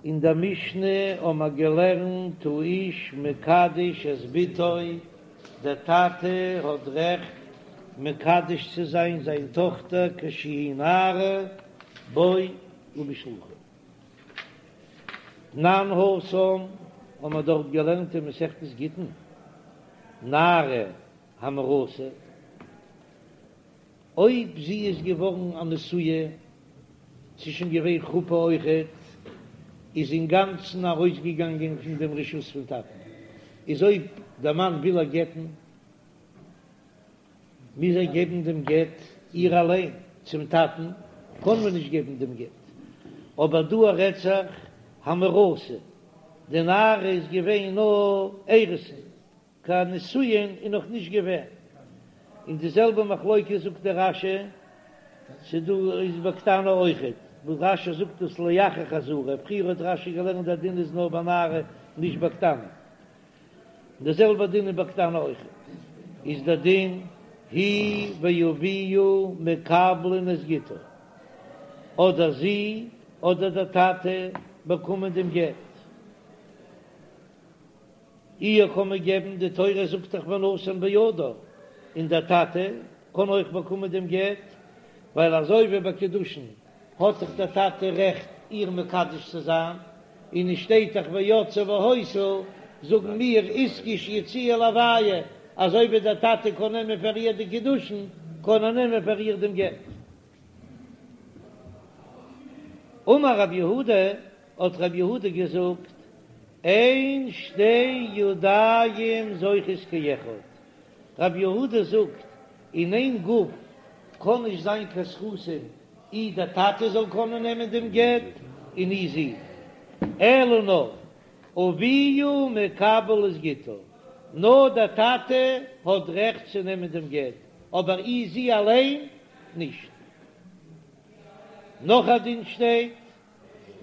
אין דער משנה האבן מיר געלערנט האיש מקדש את בתו, דער טאטע האט רעכט מקדש צו זיין זיין טאכטער כשהיא נערה בו ובשלוחה. תנן התם האבן מיר דארט געלערנט אין מסכת גיטין, נערה המאורסה, אויב זי איז געווארן א נשואה, ס'איז שוין געווען חופה אויכעט, איז אינגאנצן ארויסגעגאנגען פון דעם רשות פון טאטן, איז אויב דער מאן וויל איר גט'ן, מוז ער געבן דעם גט איר אליין, צום טאטן קען מען נישט געבן דעם גט. אבער דא רעדט זיך המאורסה, די נערה איז געווען נאר אירוסין, קיין נישואין איז נאך נישט געווען, און די זעלבע מחלוקת זאגט דער רש"י, ס'דא איז בקטנה אויכעט, וואס רש"י זאגט דאס לאחר חזרה, פריער האט רש"י געלערנט דער דין איז נאר ביי נערה נישט בקטנה, די זעלבע דין איז בקטנה אויכעט, איז דער דין היא ואביה מקבלין את גיטה, אדער זי אדער דער טאטע באקומען דעם גט. איר קען מען געבן, די תורה זאגט דאך ונתן בידה, און דער טאטע קען אויך באקומען דעם גט, ווייל אזוי ווי ביי קידושין האט דאך דער טאטע רעכט איר מקדש צו זיין, און עס שטייט דאך ויצאה והיתה, זאגן מיר איתקש יציאה להויה, אזוי ווי דער טאטע קען נעמען פאר איר די קידושין, קען ער נעמען פאר איר דעם גט. אמר רב יהודה, האט רב יהודה געזאגט, אין שתי ידיים זוכות כאחד, רב יהודה זאגט, אין איין גוף קען נישט זיין קיין זכותים, אי דער טאטע זאל קענען נעמען דעם גט און אי זי, אלא נאר אביה מקבל את גיטה, נאר דער טאטע האט רעכט צו נעמען דעם גט, אבער אי זי אליין נישט. נאך א דין שטייט,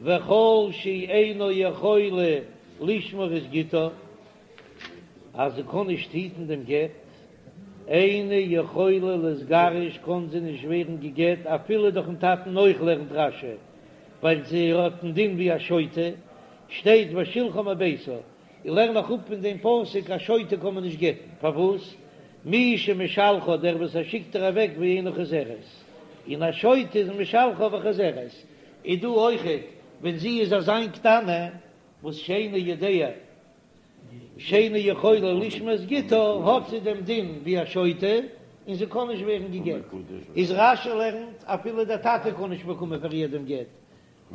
וכל שאינה יכולה לשמור את גיטה, אז זי קען נישט היטן דעם גט, אינה יכולה להתגרש קען זי נישט ווערן גע'גט אפילו דורכ'ן טאטן אויך לערנט רש"י, ווייל זי האט דעם דין ווי א שוטה, שטייט ושלחה מביתה, איך לערן נאך אפ פון דעם פסוק א שוטה קען מען נישט גט'ן, פארוואס? מי שמשלחה דער וואס ער שיקט איר אוועק ואינה חוזרת, און א שוטה איז משלחה וחוזרת, איז דא אויכעט ווען זי איז אזיין קטנה וואס שאינו יודע שאינה יכולה לשמור את גיטה האט זי דעם דין ווי א שוטה און זי קען נישט ווערן גע'גט, איז רש"י לערנט אפילו דער טאטע קען נישט באקומען פאר איר דעם גט,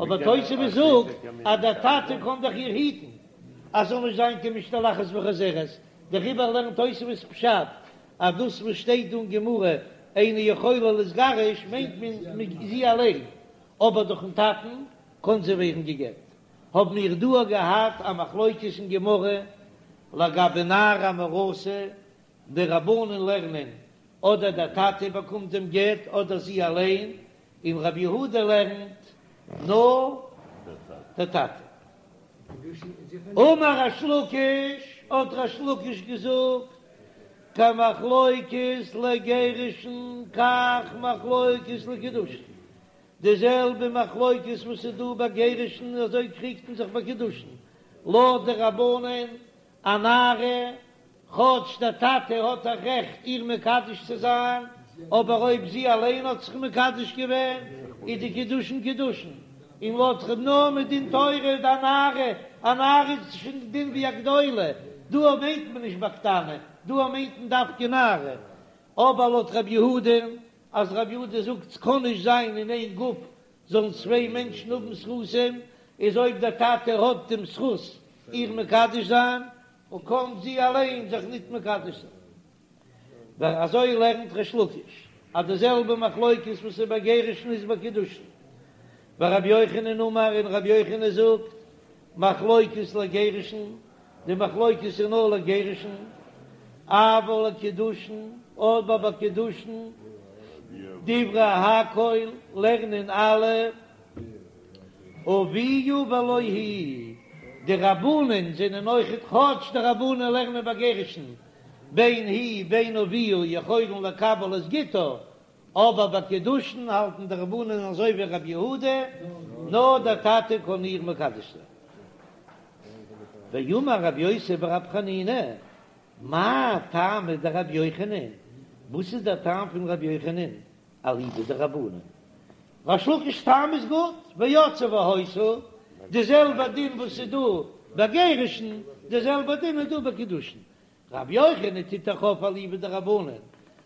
אבער תוספות זאגט אז דער טאטע קען דאך איר היטן אז זאל נישט זיין קיין משתלחת וחוזרת, דעריבער לערנט תוספות פשט אז דאס וואס שטייט דא אין גמרא אינה יכולה להתגרש מיינט מען זי אליין, אבער דורכן טאטן קען זי ווערן גע'גט. האבן מיר דא געהאט א מחלוקת אין גמרא לגבי נערה המאורסה, די רבנן לערנען אדער דער טאטע באקומט דעם גט אדער זי אליין, און רבי יהודה לערנט נאר דער טאטע. אמר ריש לקיש, האט ריש לקיש געזאגט, כמחלוקת לגירושין כך מחלוקת לקידושין, די זעלבע מחלוקת וואס איז דא ביי גירושין אזוי קריגט מען זיך ביי קידושין, לויט די רבנן א נערה כאטש דער טאטע האט א רעכט איר מקדש צו זיין, אבער אויב זי אליין האט זיך מקדש געווען, איז די קידושין קידושין, און לויט ר' נאר מדין תורה איז א נערה, א נערה איז שוין די דין ווי א גדולה, דא מיינט מען נישט ביי קטנה, דא מיינט מען דווקא נערה, אבער לויט ר' יהודה, אז ר' יהודה זאגט ס'קען נישט זיין אין איין גוף זאלן צוויי מענטשן האבן זכותים, איז אויב דער טאטע האט דעם זכות איר מקדש זיין, און קאָן זי אַליין זיך ניט מקדש זיין. ווייל אַזוי לערנט ריש לקיש, אַז די זעלבע מחלוקת וואָס איז ביי גירושין איז ביי קידושין. ורבי יוחנן אמר, און רבי יוחנן זאָגט, מחלוקת לגירושין, די מחלוקת איז נאָר לגירושין, אבל לקידושין, אָבער ביי קידושין, דברי הכל, לערנען אַלע, אביה ולא היא, די רבנן זענען אויכעט, כאטש די רבנן לערנען ביי גירושין בין היא בין אביה יכולין לקבל את גיטה, אבער ביי קידושין האלטן די רבנן אזוי ווי רבי יהודה, נאר דער טאטע קען איר מקדש זיין. ואמר רבי יוסי ברבי חנינא, מאי טעמא דרבי יוחנן, וואס איז דער טעם פון רבי יוחנן, אליבא דרבנן? ריש לקיש'ס טעם איז גוט, ויצאה והיתה, די זעלבע דין וואס איז דא ביי גירושין, די זעלבע דין איז דא ביי קידושין. רבי יוחנן טוט דאך אויף אליבא דרבנן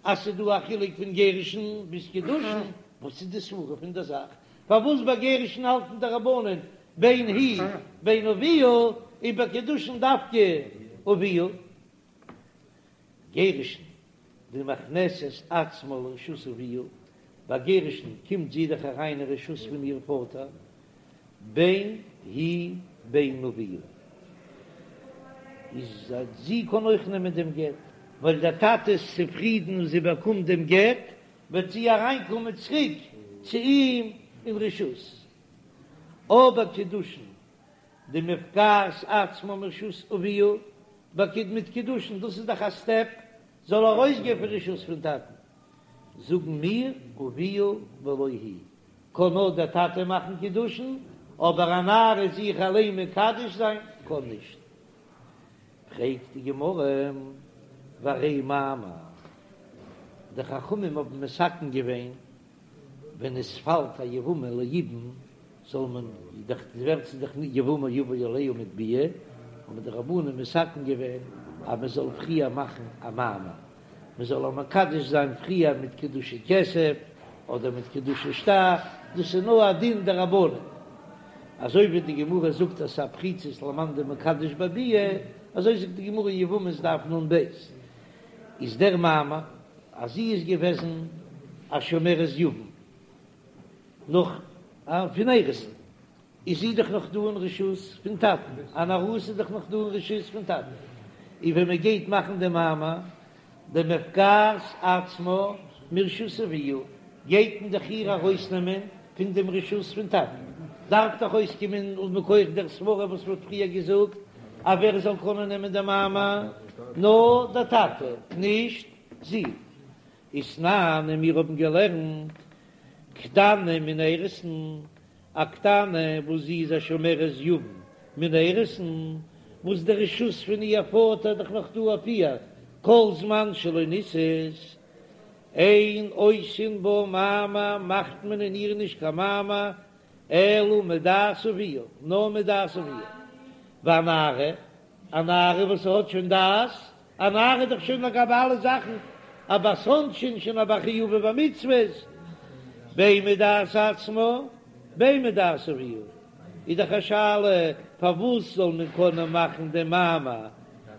אז ס'איז דא א חילוק פון גירושין ביז קידושין, וואס איז די סברא פון דער זאך פארוואס ביי גירושין האלטן די רבנן בין היא בין אביה און ביי קידושין דווקא אביה? גירושין דמכנסת עצמה לרשות אביה, ביי גירושין קומט זי דאך אריין אין רשות פון איר פאטער, בין היא בין אביה, איז אז זי קען אויך נעמען דעם גט, ווייל דער טאטע איז צופרידן און זי באקומט דעם גט, וועט זי אריינקומען צוריק צו אים אין רשות. אבער קידושין דמפקעת עצמה מרשות אביה, ביי מיט קידושין, דאס איז דאך א סטעפ, זאל ארויסגיין פון רשות פון טאטן, זאגן מיר אביה ולא היא, קען נאר דער טאטע מאכן קידושין, אבער א נערה זיך אליין מקדש זיין קען נישט. פרעגט די גמרא, והרי מאמר, די חכמים האבן מתקן געווען ווען עס פאלט א יבמה ליבום זאל מען דאך ווערט זי דאך יבמה יבא עליה מיט ביאה, האבן די רבנן מתקן געווען אז מען זאל פריער מאכן א מאמר, מען זאל איר מקדש זיין פריער מיט קידושי כסף אדער מיט קידושי שטר, דאס איז נאר א דין דרבנן, אזוי ווי די גמרא זאגט אז ס'איז א פריצות למאן דמקדש בביאה, אזוי זאגט די גמרא אין יבמות דף נ"ב, איז דער מאמר אז זי איז געוועזן א שומרת יבם נאך פון אירוסין, איז זי דאך נאך דא אין רשות פון טאטן, אן ארוסה איז דאך נאך דא אין רשות פון טאטן, און ווען מען גייט מאכן די מאמר דמפקעת עצמה מרשות אביה, גייט מען דאך איר ארויסנעמען פון דעם רשות פון טאטן, דארף דאך אויסקומען מכח דער סברא וואס מ'האט פריער געזאגט אז ווער זאל קענען נעמען די מאמר, נאר דער טאטע, נישט זי. ותנן, און מיר האבן געלערנט קטנה מן האירוסין, א קטנה וואס זי איז א שומרת יבם מן האירוסין, וואס די רשות פון איר פאטער איז דאך נאך דא אויף איר כל זמן שלא נישאת, אין עושין בה מאמר מאכט מען אין איר נישט קיין מאמר אלא מדעת אביה, נאר מדעת אביה. והנערה, א נערה וואס האט שוין דעת, א נערה איז דאך שוין לגבי אלע זאכן א בת עונשין, שוין א בר חיובא במצוות, בין מדעת עצמה בין מדעת אביה, איז דאך א שאלה פארוואס זאל מען קענען מאכן דעם מאמר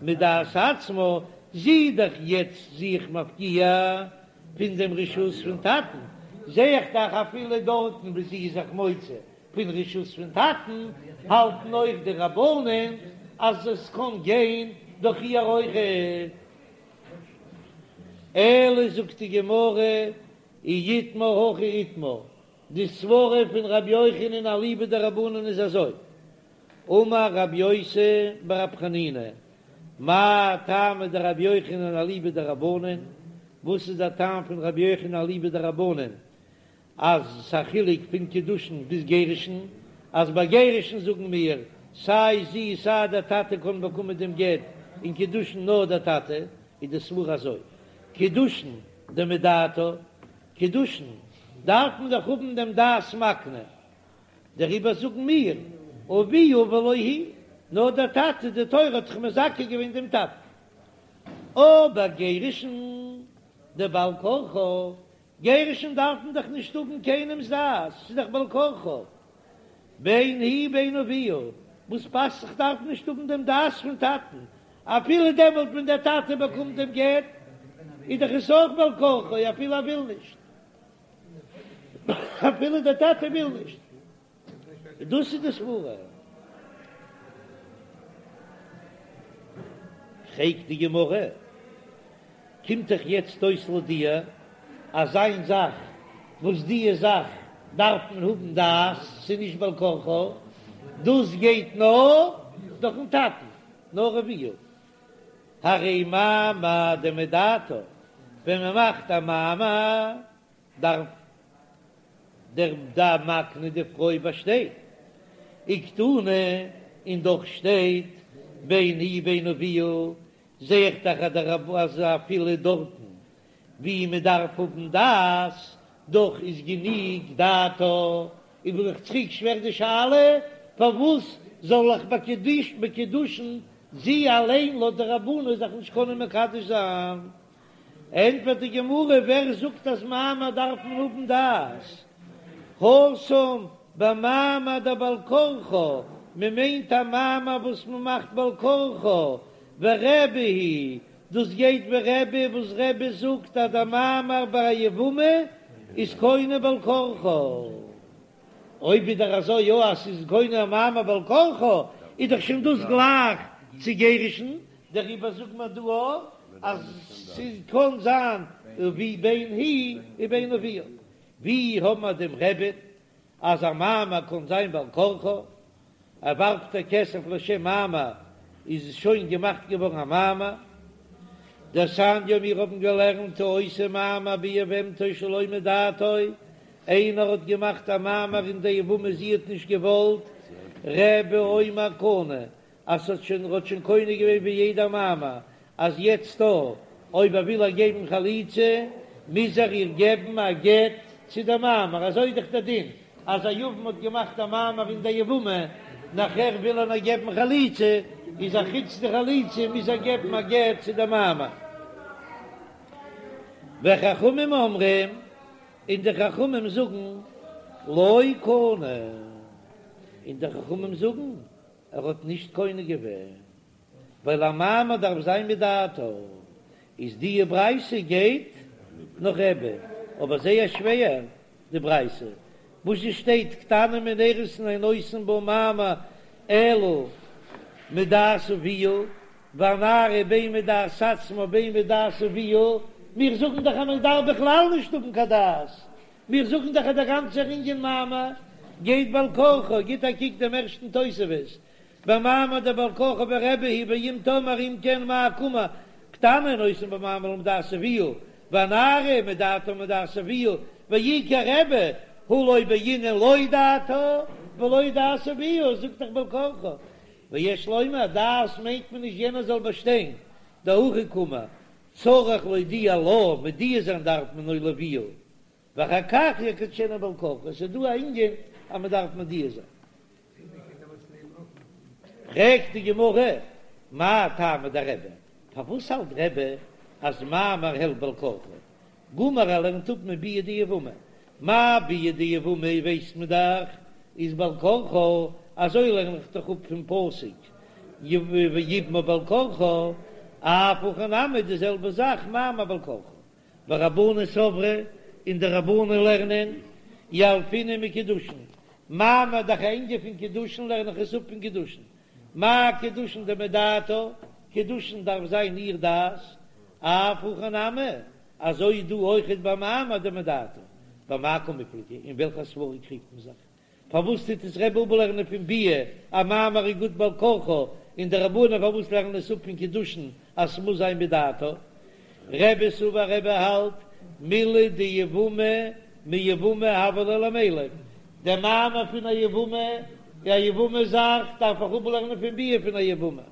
מדעת עצמה, זי איז דאך יעצט זיך מפקיע פון דעם רשות פון טאטן, זע איך דאך אפילו דארטן וואו זי איז זיך מוציא פון רשות פון טאטן, האלטן אויך די רבנן אז עס קען גיין דורך איר אויכעט. אלא זאגט די גמרא, אי איתמר הכי איתמר, די סברה פון רבי יוחנן אליבא דרבנן איז אזוי, אמר רבי יוסי ברבי חנינא, מאי טעמא דרבי יוחנן אליבא דרבנן, וואס איז דער טעם פון רבי יוחנן אליבא דרבנן אז ס'א חילוק פון קידושין ביז גירושין, אז ביי גירושין זאגן מיר סיי זי סיי דער טאטע קען באקומען דעם גט, און קידושין נאר דער טאטע, איז די סברא אזוי, קידושין דמדעתה, קידושין דארף מען דאך האבן דעם דעת מקנה, דעריבער זאגן מיר אביה ולא היא, נאר דער טאטע, די תורה האט דאך מזכה געווען דעם טאטן. אבער גירושין דבעל כרחה, גירושין דארף מען דאך נישט האבן קיינעמס דעת, ס'איז דאך בעל כרחה, בין היא בין אביה, וואס פאסט זיך דארף נישט האבן דעם דעת פון טאטן, אפילו דעמאלט ווען דער טאטע באקומט דעם גט, איז דאך עס אויך בעל כרחו אפילו ער וויל נישט, אפילו דער טאטע וויל נישט. דאס איז די סברה. פרעגט די גמרא, קומט דאך יעצט אויס לויט דיר אז איין זאך וואס די זאך דארף מען האבן דעת, ס'איז נישט בעל כרחו, דאס גייט נאר דורכן טאטן, נאר אביה. הרי מאמר דמדעתה, ווען מען מאכט א מאמר דארף דער דער מקנה די פרוי באשטיין וקתני, און דאך שטייט. בין היא בין אביה, זע איך דאך אז דער רב אז אפילו דארטן ווי מען דארף האבן דעת, דאך איז גענוג דעתה, איז בין איך צוריק שווער די שאלה, פארוואס זאל איך ביי קידושין זי אליין לויט די רבנן זיך נישט קענען מקדש זיין? ענטפערט די גמרא, ווער זאגט אז מאמר דארף מען האבן דעת? התם במאמר דבעל כרחה, מען מיינט א מאמר וואס מען מאכט בעל כרחה, ורבי היא, דאס גייט ווי רבי וואס רבי זאגט אז דער מאמר ביי א יבמה איז קונה בעל כרחה. אויב איז דאך אזוי יא אז ס'איז קונה א מאמר בעל כרחה, איז דאך שוין דאס גלייך צו גירושין, דעריבער זאגט מען דא אויך אז ס'קען זיין ווי בין היא ובין אביה. ווי האבן מיר דעם רבי'ן אז א מאמר קען זיין בעל כרחה? ער ווארפט איר כסף לשם מאמר איז עס שוין געמאכט געווארן א מאמר. דתניא מיר האבן געלערנט העושה מאמר ביבמתו שלא מדעתו, איינער האט געמאכט א מאמר אין די יבמה זי האט נישט געוואלט, רבי אומר קנה, אז ס'האט שוין ער האט שוין קונה געווען ווי יעדער מאמר, אז יעצט דא אויב ער וויל איר געבן חליצה מוז ער איר געבן א גט צו די מאמר, אזוי איז דאך דער דין אז א יבם האט געמאכט א מאמר אין די יבמה נאכער וויל ער נאר געבן חליצה, איז א חוץ די חליצה מוז ער געבן א גט צו די מאמר. וחכמים אומרים, און די חכמים זאגן לא קנה, און די חכמים זאגן ער האט נישט קונה געווען, ווייל א מאמר דארף זיין מדעתה, איז די ברייתא גייט נאך רבי, אבער זייער שווער די ברייתא, וואס עס שטייט קטנה מן האירוסין אין עושין בה מאמר אלא מדעת אביה, והנערה בין מדעת עצמה בין מדעת אביה, מיר זאגן דאך אז מען דארף בכלל נישט האבן קיין דעת, מיר זאגן דאך אז דער גאנצער ענין מאמר גייט בעל כרחו, גיט א קוק דעם ערשטן תוספות, במאמר דבעל כרחה ורבי היא ואם תאמר אם כן מאי קאמר קטנה אין עושין בה מאמר אלא מדעת אביה והנערה מדעתה ומדעת אביה ואי כרבי הא לא בעינן לא דעתה ולא דעת אביה זאגט דאך בעל כרחה ויש לומר דעת מיינט מען נישט יענער זאל באשטיין דהכי קאמר צריך להודיע לה מודיע זיין דארף מען או לאביה ואחר כך יקדשנה בעל כרחה, עס איז דא א ענין אז מען דארף מודיע זיין. פרעגט די גמרא, מאי טעמא דרבי, פארוואס האלט רבי אז מאמר העלפט בעל כרחו? גמר ער לערנט אפ מביאה דיבמה, מה ביאה דיבמה ווייסט מען דאך איז בעל כרחה, אזוי לערן איך דאך אפ פון פסוק ויבמה בעל כרחה, אף הכא נמי די זעלבע זאך מאמר בעל כרחה. ורבנן סברי, און די רבנן לערנען, ילפינן מקידושין, מאמר דאך א ענין פון קידושין לערן איך עס אפ פון קידושין, מה קידושין דמדעתה, קידושין דארף זיין איר דעת, אף הכא נמי, אזוי דא אויכעט ביי מאמר דמדעתה, במאי קמיפלגי, אין וועלכע סברא קריגט מען זיך? פארוואס טוט עס רבי אפלערנען פון ביאה אז מאמר איז גוט בעל כרחה, און די רבנן פארוואס לערנען עס אפ פון קידושין אז ס'מוז זיין מדעתה? רבי סבר רבי האלט מילי דיבמה מיבמה הוה ליה למילף, דער מאמר פון א יבמה איז א יבמה זאך דארף איך אפלערנען פון ביאה פון א יבמה.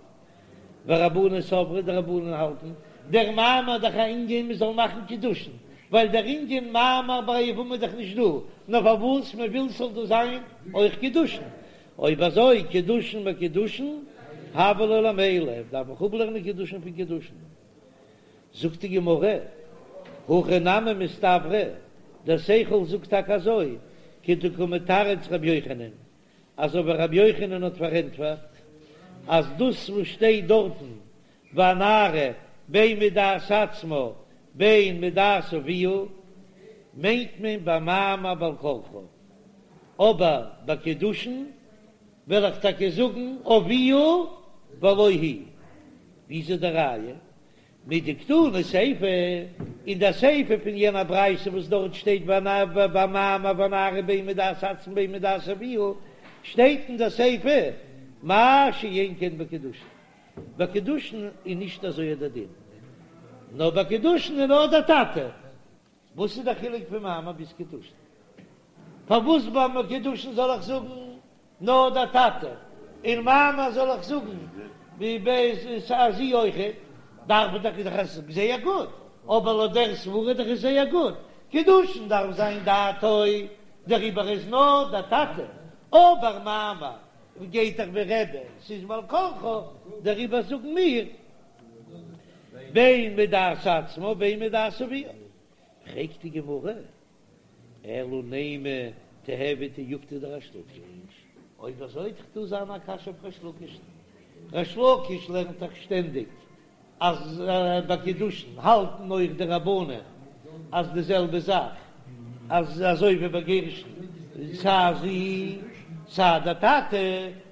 ורבנן סברי די רבנן האלטן דער מאמר דאך א ענין מען זאל מאכן קידושין, ווייל דער ענין מאמר ביי א יבמה איז דאך נישט דא, נאר פארוואס מען וויל ס'זאל דא זיין אויך קידושין, אויב אזוי קידושין מקידושין הוה ליה למילף דארף איך אפלערנען קידושין פון קידושין. זאגט די גמרא, הכי נמי מסתברא, דער שכל זאגט טאקע אזוי, כדקא מתרץ רבי יוחנן, אזוי ווי רבי יוחנן האט פארענטפערט אז דאס וואס שטייט דארטן והנערה בין מדעת עצמה בין מדעת אביה מיינט מען ביי מאמר בעל כרחה, אבער ביי קידושין וועל איך טאקע זאגן אביה ולא היא. ווי איז די ראיה? מדקתני סיפא, אין דער סיפא פון יענער ברייתא וואס דארט שטייט במאמר והנערה בין מדעת עצמה בין מדעת אביה, שטייט אין דער סיפא מה שאין כן בקידושין. ביי קידושין איז נישט אזוי דער דין, נאר ביי קידושין איז נאר דער טאטע. וואס איז דער חילוק פון מאמר ביז קידושין? פארוואס ביי קידושין זאל איך זאגן נאר דער טאטע, און מאמר זאל איך זאגן. אז זי אויכעט, דארף דאך איז דאך עס זייער גוט, אבער לויט דער סברא דאך איז זייער גוט, קידושין דארף זיין דעתו, דעריבער איז נאר דער טאטע, אבער מאמר גייט דאך ווי רבי, ס'איז בעל כרחה, דעריבער זאגן מיר בין מדעת עצמה בין מדעת אביה. פרעגט די גמרא, אלא נימא תיהוי תיובתא דריש לקיש, אויב אזוי וועט דאך דא זיין א קשיא אויף ריש לקיש, ריש לקיש לערנט דאך שטענדיג אז ביי קידושין האלטן אויך די רבנן אז די זעלבע זאך, אז אזוי ווי ביי גירושין סיי זי סיי די טאטע,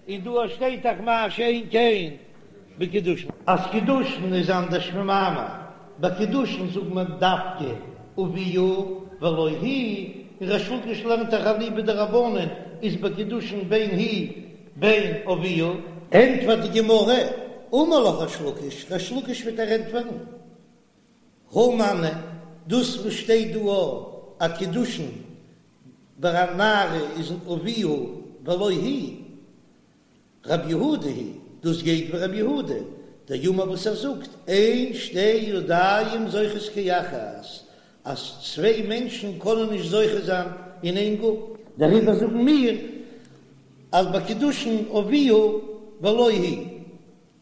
און דא שטייט דאך מה שאין כן בקידושין. אז קידושין איז אנדערש פון מאמר, ביי קידושין זאגט מען דווקא אביה ולא היא, און ריש לקיש לערנט דאך אליבא דרבנן איז ביי קידושין בין היא בין אביה. ענטפערט די גמרא, אמר לך ריש לקיש, ריש לקיש וועט דיר ענטפערן, הא מני, דאס וואס שטייט דא אז קידושין ביי א נערה איז אביה ולא היא, רבי יהודה היא, דאס גייט ווי רבי יהודה, דאמר וואס ער זאגט, אין שתי ידיים זוכות כאחת, אז צוויי מענטשן קענען נישט זוכה זיין אין איין גוף. דעריבער זאגן מיר אז ביי קידושין אביה ולא היא,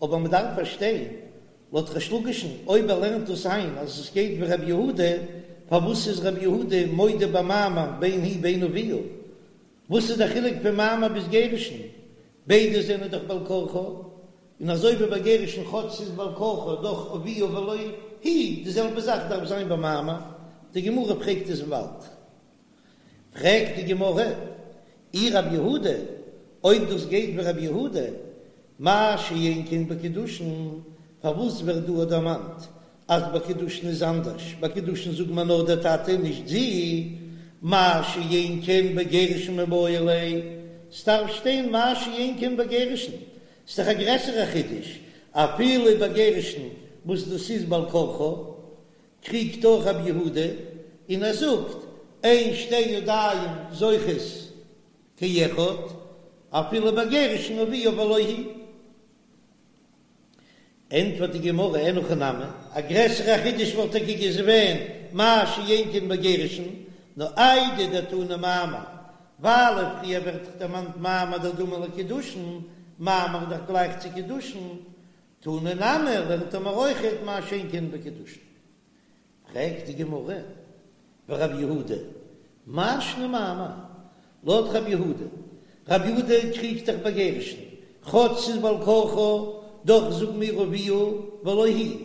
אבער מען דארף פארשטיין, לויט ריש לקיש'ן, אויב ער לערנט דאס איין אז עס גייט ווי רבי יהודה, פארוואס איז רבי יהודה מודה במאמר בין היא בין אביה? וואס איז דער חילוק פון מאמר ביז גירושין? ביידע זענען דאך בעל כרחה, און אזוי ווי ביי גירושין כאטש ס'איז בעל כרחה דאך אביה ולא היא, די זעלבע זאך דארף זיין ביי מאמר, די גמרא פרעגט עס באלד. פרעגט די גמרא, אי רב יהודה, אויב דאס גייט ווי רב יהודה, מה שאין כן בקידושין, פארוואס ווערט דא דערמאנט אז ביי קידושין איז אנדערש, ביי קידושין זאגט מען נאר דער טאטע נישט זי, מה שאין כן בגירושין מיבעי ליה, ס'דארף שטיין מה שאין כן בגירושין, ס'דאך א גרעסערע חידוש, אפילו ביי גירושין וואס דאס איז בעל כרחה, קריגט אויך רבי יהודה און ער זאגט אין שתי ידיים זוכות כאחד, אפילו ביי גירושין אביה ולא היא. ענטפערט די גמרא אין הכי נמי, א גרעסערע חידוש וואלט טאקע געווען מה שאין כן בגירושין, נאר איידי דתנא מאמר, ווייל פריער ווערט דאך דערמאנט מאמר דדמי לקידושין, מאמר איז דאך גלייך צו קידושין, תנא נמי לערנט ער מיר אויכעט מה שאין כן בקידושין. פרעגט די גמרא, ורב יהודה, מאי שנא מאמר? לויט רב יהודה, רב יהודה קריגט דאך ביי גירושין, כאטש ס'איז בעל כרחה, דאך זאגן מיר אביה ולא היא,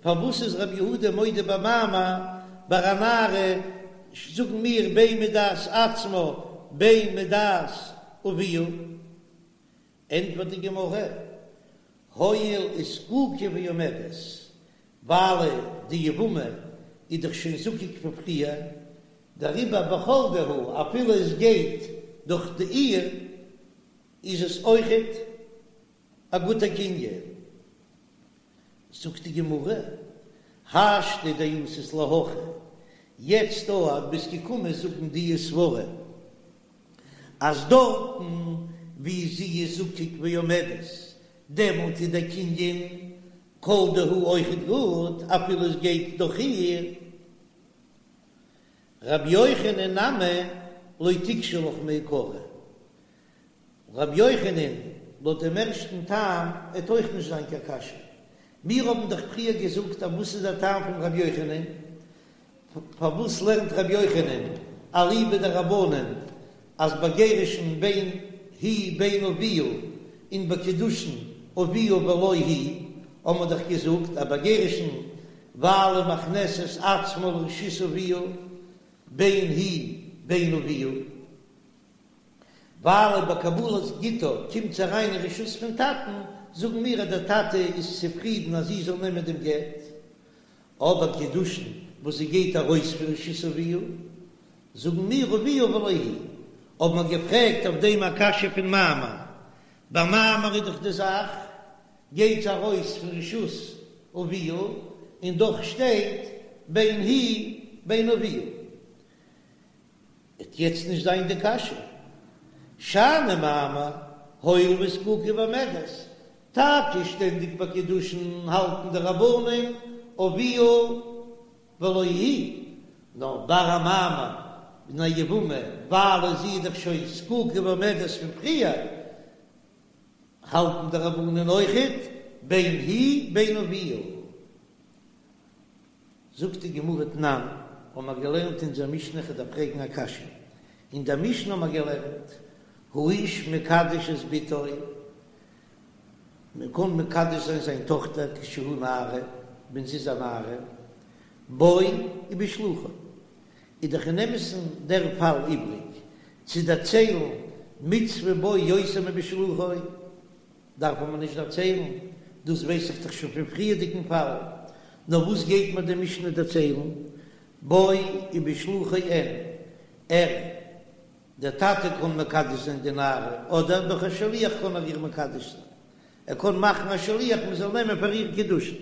פארוואס איז רב יהודה מודה במאמר, ביי א נערה זאגן מיר בין מדעת עצמה בין מדעת אביה? ענטפערט די גמרא, הואיל וזקוקה ועומדת, ווייל די יבמה איז דאך שוין זקוק פון פריער, דעריבער בכל דהו אפילו עס גייט דורך די איר איז עס אויכעט א גוטע קנין. זאגט די גמרא, השתא דאתית להכי, יעצט דא אז ביסט געקומען זאגן די סברה אז דארטן ווי זי איז זקוק ועומדת דעמאלט איז דער קנין כל דהו אויכעט גוט אפילו עס גייט דורך איר. רבי יוחנן נמי לא תיקשי לך מעיקרא, רבי יוחנן לויט דעם ערשטן טעם עט אויך נישט זיין קיין קשיא, מיר האבן דאך פריער געזאגט אז וואס איז דער טעם פון רבי יוחנן, פארוואס לערנט רבי יוחנן אליבא דרבנן אז ביי גירושין בין היא בין אביה און ביי קידושין אביה ולא היא, האבן מיר דאך געזאגט אז ביי גירושין ווייל מכנסת עצמה לרשות אביה בין היא בין אביה, ווייל ביי קבלת גיטה קומט זי אריין אין רשות פון טאטן, זאגן מיר אז דער טאטע איז צופרידן אז זי זאל נעמען דעם גט, אבער קידושין וואס זי גייט ארויס פון רשות אביה, זאגן מיר אביה ולא היא, האבן מיר געפרעגט אויף דעם א קשיא פון מאמר, ביי מאמר איז דאך די זאך גייט זי ארויס פון רשות אביה, און דאך שטייט בין היא בין אביה. וועט יעצט נישט זיין די קשיא. שאני מאמר, הואיל וזקוקה ועומדת. טאקע שטענדיג ביי קידושין האלטן די רבנן אביה ולא היא, נאר ביי א מאמר אין א יבמה ווייל זי איז דאך שוין זקוקה ועומדת פון פריער, האלטן די רבנן אויכעט בין היא בין אביה. זאגט די גמרא תנן, האבן מיר געלערנט אין אונזער משנה כ'דארף פרעגן א קשיא, אין דער משנה האבן מיר געלערנט האיש מקדש את בתו, מען קען מקדש זיין זיין טאכטער כשהיא נערה, ווען זי איז א נערה, בו ובשלוחו, איז דאך אין אמת'ן דער פאל איבריג צו דערציילן מצוה בו יותר מבשלוחו, דארף מען נישט דערציילן, דאס ווייס איך דאך שוין פון פריערדיגן פאל, נאר וואס גייט מיר די משנה דערציילן, בו ובשלוחו אין, ער, דער טאטע קען מקדש זיין די נערה, אדער דורך א שליח קען ער איר מקדש זיין, ער קען מאכן א שליח מען זאל נעמען פאר איר קידושין,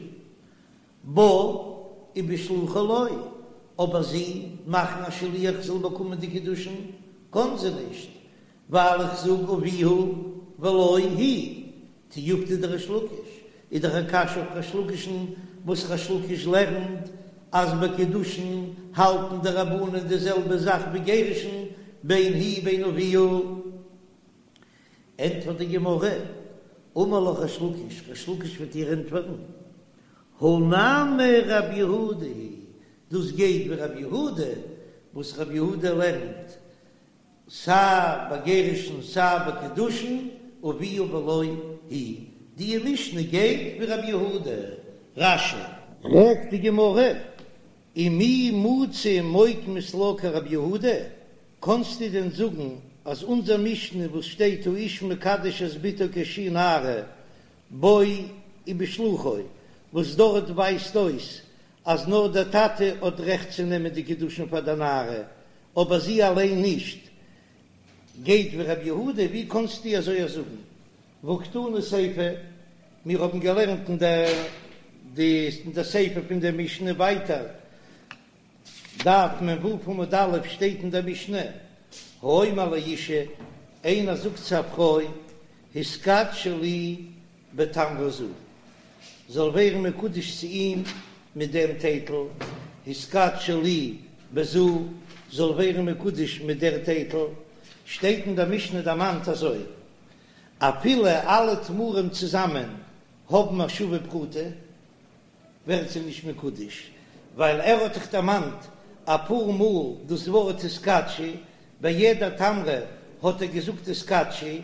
בה ובשלוחה לא, אבער זי מאכן א שליח זאל באקומען די קידושין קען זי נישט, ווייל איך זאג אביה ולא היא, תיובתא דריש לקיש, איז דאך א קשיא אויף ריש לקיש'ן וואס ריש לקיש לערנט אז ביי קידושין האלטן די רבנן די זעלבע זאך ווי גירושין בין היא בין אביה. ענטפערט די גמרא, אמר לך ריש לקיש, ריש לקיש וועט דיר ענטפערן, הא נמי רבי יהודה היא, דאס גייט ווי רבי יהודה, וואס רבי יהודה לערנט סיי ביי גירושין סיי ביי קידושין, אביה ולא היא, די משנה גייט ווי רבי יהודה. רש"י. פרעגט די גמרא, ומי מצית מוקמת לה כרבי יהודה, קאנסטו דען זאגן אז אונזער משנה וואס שטייט האיש מקדש את בתו כשהיא נערה בו ובשלוחו, וואס דארט ווייזט אויס אז נאר דער טאטע האט רעכט צו נעמען די קידושין פאר דער נערה, אבער זי אליין נישט, גייט ווי רבי יהודה, ווי קאנסטו אזוי זאגן? והא קתני סיפא, מיר האבן געלערנט אין די אין די סיפא פון דער משנה ווייטער, דף מ"ו עמוד א', שטייט אין דער משנה, האומר לאשה, איינער זאגט צו א פרוי, התקדשי לי בתמרה זו, זאל ווערן מקודש צו אים מיט דעם טייטל, התקדשי לי בזו, זאל ווערן מקודש מיט דער טייטל, שטייט אין דער משנה דערמאנט אזוי, אפילו אלע תמרים צוזאמען האבן א שווה פרוטה, ווערט זי נישט מקודש, ווייל ער האט דאך דערמאנט אפאר מאל דאס ווארט התקדשי, ביי יעדע תמרה האט ער געזאגט התקדשי,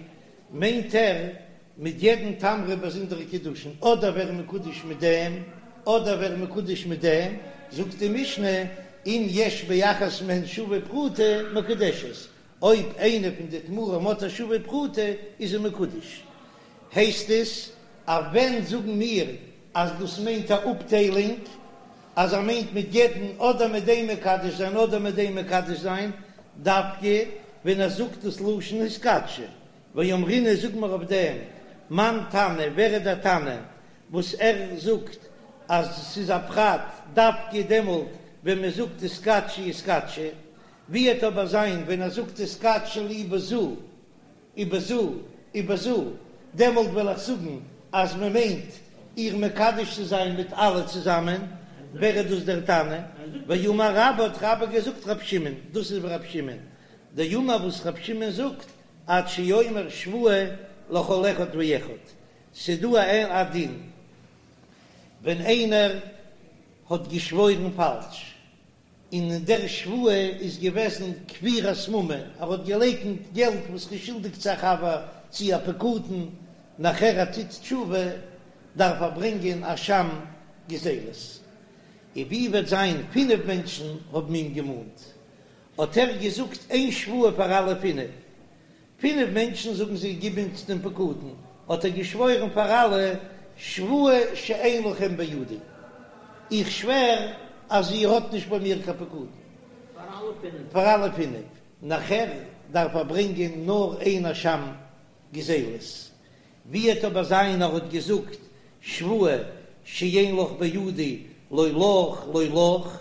מיינט ער מיט יעדן תמרה באזונדערע קידושין, אדער ווער מקודש מיט דעם, אדער ווער מקודש מיט דעם, זאגט די משנה, אם יש באחת מהן שווה פרוטה מקודשת, אויב איינע פון די תמרים האט א שווה פרוטה איז זי מקודש. הייסט עס אז ווען זאגן מיר אז דאס מיינט א אפטיילונג, אז ער מיינט מיט יעדן אדער מיט דעם מקדש זיין אדער מיט דעם מקדש זיין, דווקא ווען ער זאגט דאס לשון התקדשי, ואמרינן זאג מיר אויף דעם, מאן תנא, ווער איז דער תנא וואס ער זאגט אז ס'איז א פרט דווקא דעמאלט ווען מען זאגט התקדשי התקדשי, ווי וועט אבער זיין ווען ער זאגט התקדשי לי בזו ובזו ובזו, דעמאלט וועל איך זאגן אז מען מיינט איר מקדש צו זיין מיט אלע צוזאמען, ווער איז דאס דער תנא? ואמר רבה האט רבה געזאגט רב שמעון, דאס איז רב שמעון, דאמר וואס רב שמעון זאגט עד שיאמר שבועה לכל אחד ואחד, ס'דא א א דין ווען איינער האט געשוואוירן פאלש, און אין דער שבועה איז געוועזן כפירת ממון, ער האט געלייקנט געלט וואס ר'איז שולדיג צו א חבר צו א פקדון, נאכער ער טוט תשובה דארף ער ברענגען אשם גזילות. און ווי וועט זיין פינף מענטשן האבן אים געמאנט, האט ער געזאגט איין שבועה פאר אלע פינף, פינף מענטשן זאגן זיי גיב אונז דעם פקדון, האט ער געשוואוירן פאר אלע, שבועה שאין לכם בידי, איך שווער אז איר האט נישט ביי מיר קיין פקדון. פאר אלע פינף. נאכער דארף ער ברענגען נאר איין אשם גזילות. ווי וועט אבער זיין ער האט געזאגט שבועה שאין לך בידי לא לך לא לך,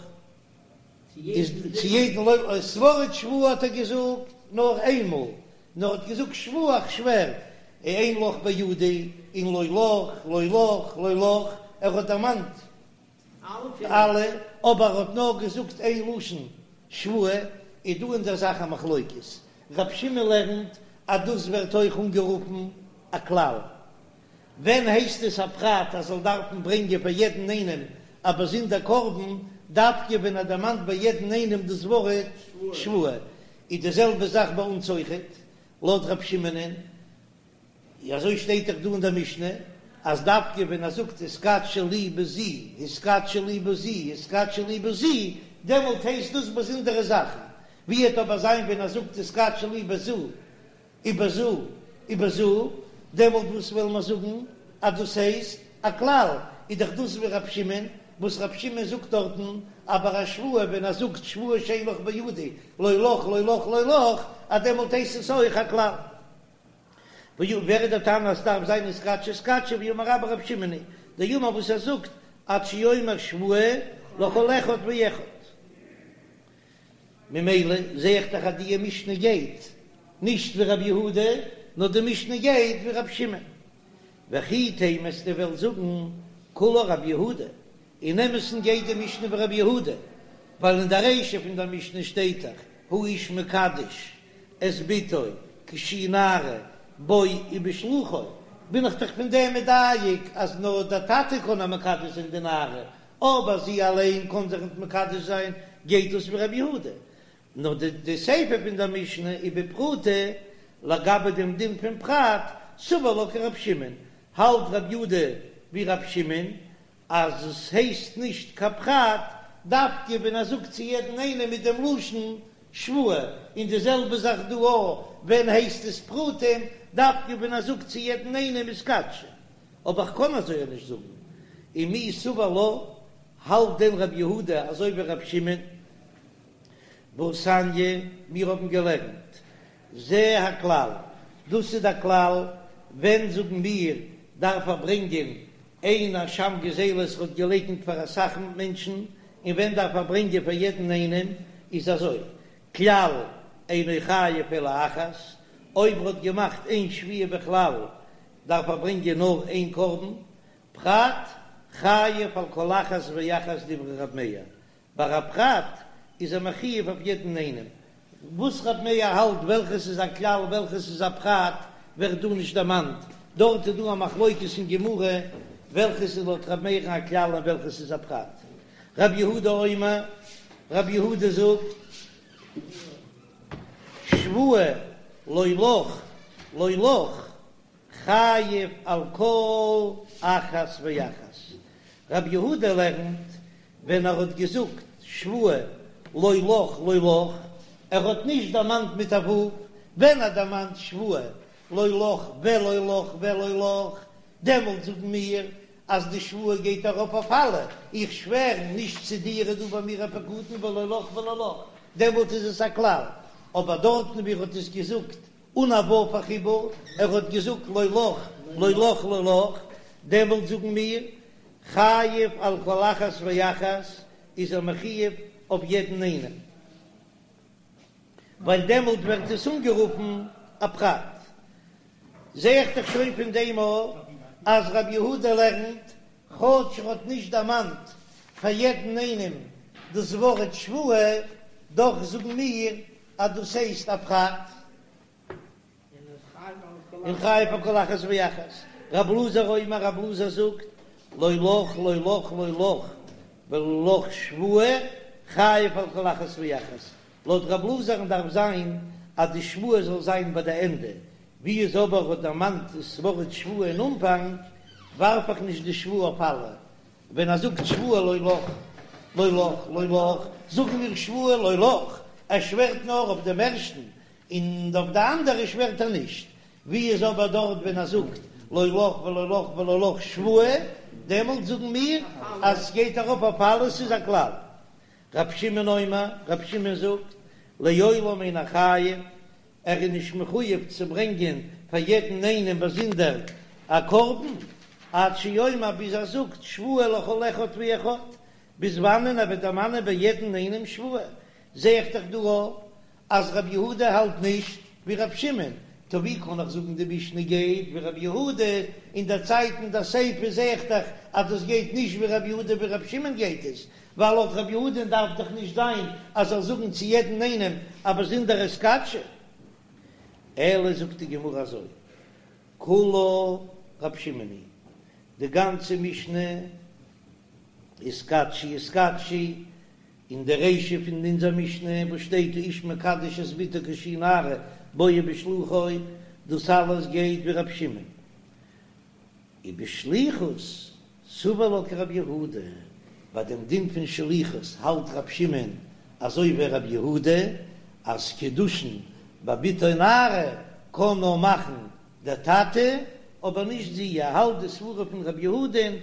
איז צו יעדן לא לך, ס'ווארט שבועה האט ער געזאגט נאר איין מאל, נאר האט געזאגט שבועה איך שווער. אין לך בידי און לא לך לא לך לא לך, ער האט דערמאנט אלע, אבער ער האט נאר געזאגט איין לשון שבועה, איז דא אין דער זאך א מחלוקת, רב שמעון לערנט אז דאס ווערט אויך אנגערופן א כלל, ווען הייסט עס א פרט אז זאל דארפן ברענגען פאר יעדן איינעם א באזונדער קרבן, דווקא ווען ער דערמאנט ביי יעדן איינעם דאס ווארט שבועה, איז די זעלבע זאך ביי אונז אויכעט, לויט רב שמעונ'ען, אזוי שטייט דאך דא אין דער משנה, אז דווקא ווען ער זאגט התקדשי לי בזו, התקדשי לי בזו, התקדשי לי בזו, דעמאלט הייסט דאס באזונדערע זאכן, ווי וועט אבער זיין ווען ער זאגט התקדשי לי בזו, ובזו ובזו, דעמאלט וואס וועלן מיר זאגן אז דאס הייסט א כלל, איז דאך דאס ווי רב שמעון, וואס רב שמעון זאגט דארטן אז ביי א שבועה ווען ער זאגט שבועה שאין לך בידי לא לך לא לך לא לך, אז דעמאלט הייסט עס אויך א כלל. ווער איז דער תנא אז ס'דארף זיין התקדשי התקדשי ואמר רבה רב שמעון היא דאמר וואס ער זאגט עד שיאמר שבועה לכל אחד ואחד. ממילא זע איך דאך אז די משנה גייט נישט ווי רבי יהודה, נאר די משנה גייט ווי רבי שמעון. וכי תימא אז דו וועסט זאגן כולה רבי יהודה, אין אמת'ן גייט די משנה ווי רבי יהודה, ווייל אין די רישא פון דער משנה שטייט דאך האיש מקדש את בתו כשהיא נערה בו ובשלוחו, בין איך דאך פון דעם מדייק אז נאר דער טאטע קען איר מקדש זיין די נערה, אבער זי אליין קען זיך ניט מקדש זיין, גייט דאס ווי רבי יהודה. נאר די סיפא פון דער משנה ובפרוטה, לגבי דעם דין פון פרט, סבר לה כרבי שמעון, האלט רבי יהודה ווי רבי שמעון, אז עס הייסט נישט קיין פרט, דווקא ווען ער זאגט צו יעדן איינעם מיט דעם לשון שבועה, און די זעלבע זאך דא אויך, ווען הייסט עס פרטים, דווקא ווען ער זאגט צו יעדן איינעם התקדשי. אבער איך קען אזוי נישט זאגן. ומי סבר לה, האלט דען רבי יהודה אזוי ווי רבי שמעון? והתניא, מיר האבן געלערנט, זה הכלל, דאס איז דער כלל, ווען זאגן מיר דארף ער ברענגען איין אשם גזילות האט געלייקנט פאר אסאך מענטשן, און ווען דארף ער ברענגען פאר יעדן איינעם, איז אזוי, כלל אינו חייב אלא אחת, אויב ער האט געמאכט איין שבועה בכלל דארף ער ברענגען נאר איין קרבן, פרט חייב על כל אחת ואחת דברי רב מאיר, ביי א פרט איז ער מחויב אויף יעדן איינעם, וואס רב מאיר האלט וועלכעס איז א כלל וועלכעס איז א פרט ווערט דא נישט דערמאנט, דארט איז דא א מחלוקת אין גמרא וועלכעס איז לויט רב מאיר'ן א כלל און וועלכעס איז א פרט. רב יהודה אומר, רב יהודה זאגט, שבועה לא לך לא לך חייב על כל אחת ואחת. רב יהודה לערנט ווען ער האט געזאגט שבועה לא לך לא לך, ער האט נישט דערמאנט מיט א ו', ווען ער דערמאנט שבועה לא לך ולא לך ולא לך, דעמאלט זאגן מיר אז די שבועה גייט ארויף אויף אלע, איך שווער נישט צו דיר איז דא ביי מיר א פקדון ולא לך ולא לך, דעמאלט איז עס א כלל, אבער דארטן ווי ער האט עס געזאגט אן א ו' החיבור, ער האט געזאגט לא לך לא לך לא לך, דעמאלט זאגן מיר חייב על כל אחת ואחת, איז ער מחויב אויף יעדן איינעם, ווייל דעמאלט ווערט עס אנגערופן א פרט. זע איך דאך שוין פון דעם אויך אז רבי יהודה לערנט, כאטש ער האט נישט דערמאנט פאר יעדן איינעם דאס ווארט שבועה, דאך זאגן מיר אז דאס הייסט א פרט. און חייב על כל אחת ואחת. רב אלעזר אומר, רב אלעזר זאגט, לא לך לא לך לא לך ולא לך שבועה, חייב על כל אחת ואחת. לויט רב אלעזר'ן דארף זיין אז די שבועה זאל זיין ביי די ענדע, ווי איז אבער האט דערמאנט דאס ווארט שבועה אין אנפאנג, ווארף איך נישט די שבועה אויף אלע, ווען ער זאגט שבועה לא לך, לא לך, לא לך, זאגן מיר שבועה לא לך, ער שווערט נאר אויף דעם ערשטן, און אויף די אנדערע שווערט ער נישט, ווי איז אבער דארט ווען ער זאגט לא לך ולא לך ולא לך שבועה, דעמאלט זאגן מיר אז עס גייט ארויף אויף אלעס ס'איז א כלל. רב שמעון אומר, רב שמעון זאגט, לעולם אינו חייב, ער איז נישט מחויב צו ברענגען פאר יעדן איינעם באזונדער א קרבן, עד שיאמר ביז ער זאגט שבועה לכל אחד ואחד, ביז וואנען ער וועט דערמאנען ביי יעדן איינעם שבועה, זע איך דאך דא אז רבי יהודה האלט נישט ווי רבי שמעון, טא ווי קען איך זאגן די משנה גייט ווי רבי יהודה, אין דער צייט אין דער סיפא זע איך דאך אז דאס גייט נישט ווי רבי יהודה ווי רבי שמעון גייט עס, ווייל לויט רבי יהודה'ן דארף דאך נישט זיין אז זאל זאגן צו יעדן איינעם א באזונדערע התקדשי. אלא זאגט די גמרא אזוי, כולה רבי שמעון היא, די גאנצע משנה התקדשי התקדשי, אין די רישא פון אונזער משנה וואס שטייט האיש מקדש את בתו כשהיא נערה בו ובשלוחו, דאס אלעס גייט ווי רבי שמעון. ובשליחות סבר לה כרבי יהודה, ביי דעם דין פון שליחות האלט רבי שמעון אזוי ווי רבי יהודה, אז קידושין ביי בתו נערה קען נאר מאכן דער טאטע, אבער נישט זי, ער האלט די סברה פון רבי יהודה'ן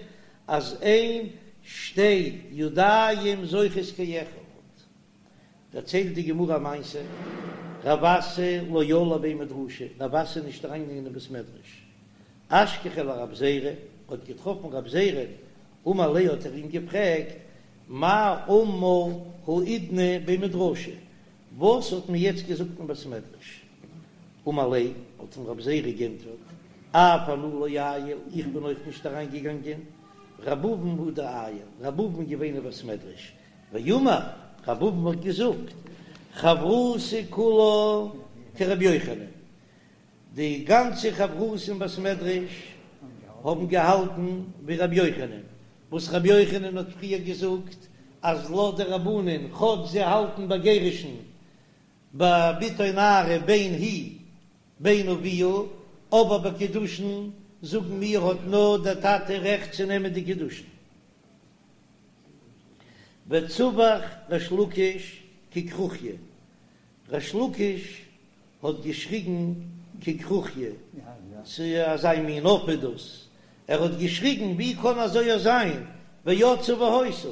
אז אין שתי ידיים זוכות כאחד. דערציילט די גמרא א מעשה, רב אסי לא עאל לבי מדרשא, רב אסי איז נישט אריינגעגאנגען אין בית מדרש, אשכחיה לרב זירא, האט געטראפן רב זירא, אמר ליה האט ער אים געפרעגט, מאי אמור האידנא בי מדרשא, וואס האט מען יעצט געזאגט אין בית מדרש? אמר ליה, האט אים רב זירא גענטפערט, אף אנא לא עייל, איך בין אויך נישט אריין געגאנגען, רב אבין הוא דעייל, רב אבין איז געווען אין בית מדרש, ואמר, רב אבין האט געזאגט, חברותא כולה כרבי יוחנן, די גאנצע חברותא אין בית מדרש האבן געהאלטן ווי רבי יוחנן, וואס רבי יוחנן האט פריער געזאגט אז לויט די רבנן כאטש זיי האלטן ביי גירושין ביי בתו נערה בין היא בין אביה, אבער ביי קידושין זאגן מיר האט נאר דער טאטע רעכט צו נעמען די קידושין. וצווח ריש לקיש ככרוכיא, ריש לקיש האט געשריגן ככרוכיא, ס'איז אזא מין עוף איז דאס, ער האט געשריגן ווי קען אזוי זיין, ויצאה והיתה,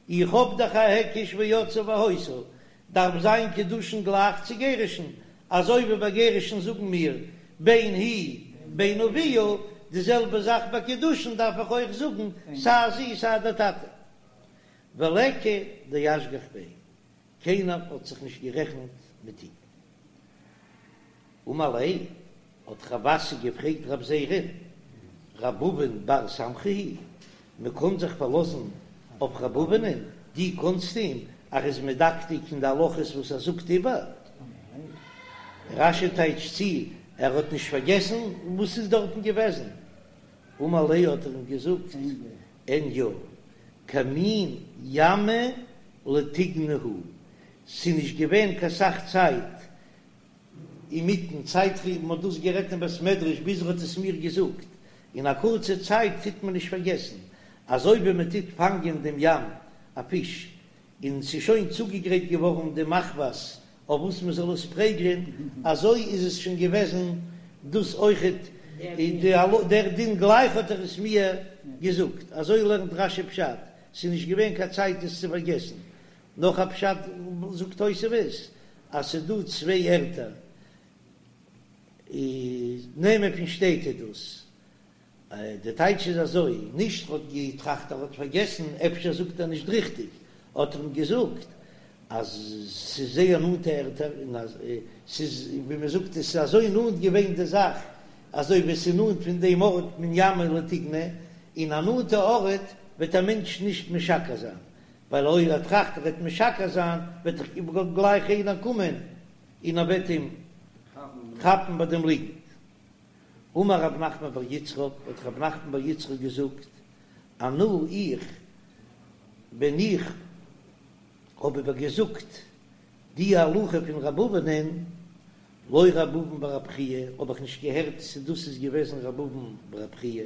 איך האב דאך א היקש ויצאה והיתה, דארף זיין קידושין גלייך צו גירושין, אזוי ווי ביי גירושין זאגן מיר בין היא בין אביה, די זעלבע זאך ביי קידושין דארף איך אויך זאגן סיי זי סיי דער טאטע. וליכא דאשגח ביה, קיינער האט זיך נישט גערעכנט מיט אים. אמר ליה, האט רב אסי געפרעגט רב זירא, רב אבין בר סמכא היא, מען קען זיך פארלאזן אויף רב אבינ'ן, דו קענסט אים, ער איז מדקדק אין די הלכות וואס ער זאגט איבער? רש"י טייטשט צו, ער האט נישט פארגעסן וואס איז דארטן געוועזן. אמר ליה האט ער אים געזאגט, אין יא, כמין ימא לטיגנא הוא, ס'איז נישט געווען קיין סך צייט אינמיטן צייט ווי מ'האט דאס גערעדט אין בית מדרש ביז ער האט עס מיר געזאגט, אין א קורצע צייט טוט מען נישט פארגעסן, אזוי ווי מען טוט פאנגען דעם ים א פיש און ס'איז שוין צוגעגרייט געווארן די מחבת אויף וואס מען זאל עס פרעגלען, אזוי איז עס שוין געוועזן דאס אויכעט דער דין גלייך האט ער עס מיר געזאגט, אזוי לערנט רש"י פשט, ס'איז נישט געווען קיין צייט עס צו פארגעסן. נאך א פשט זאגט תוספות אז ס'איז דא צוויי ערטער, נעמען פון שטעט איז דאס, די טייטש איז אזוי, נישט ר'האט געטראכט ער האט פארגעסן, אפשר זאגט ער נישט ריכטיג, האט ער אים געזאגט אז ס'איז זייער נאנטע ערטער און אז ס'איז ווי מ'זאגט עס איז אזוי נאנט געווען די זאך אזוי ווי עס איז נאנט פון דעם ארט מן ימא לטיגנא, אין א נאנטע ארט וועט א מענטש נישט משקר זיין, ווייל אויב ער טראכט ער וועט משקר זיין וועט דאך גלייך איינער קומען און ער וועט אים כאפן ביי דעם ליגנט. אמר רב נחמן בר יצחק, האט רב נחמן בר יצחק געזאגט, אנא איך, ווען איך האב איבער געזאגט די הלכה פון רב אבינ'ען, לא רב אבין בר רב חייא, האב איך נישט געהערט צו דאס איז געוועזן רב אבין בר רב חייא,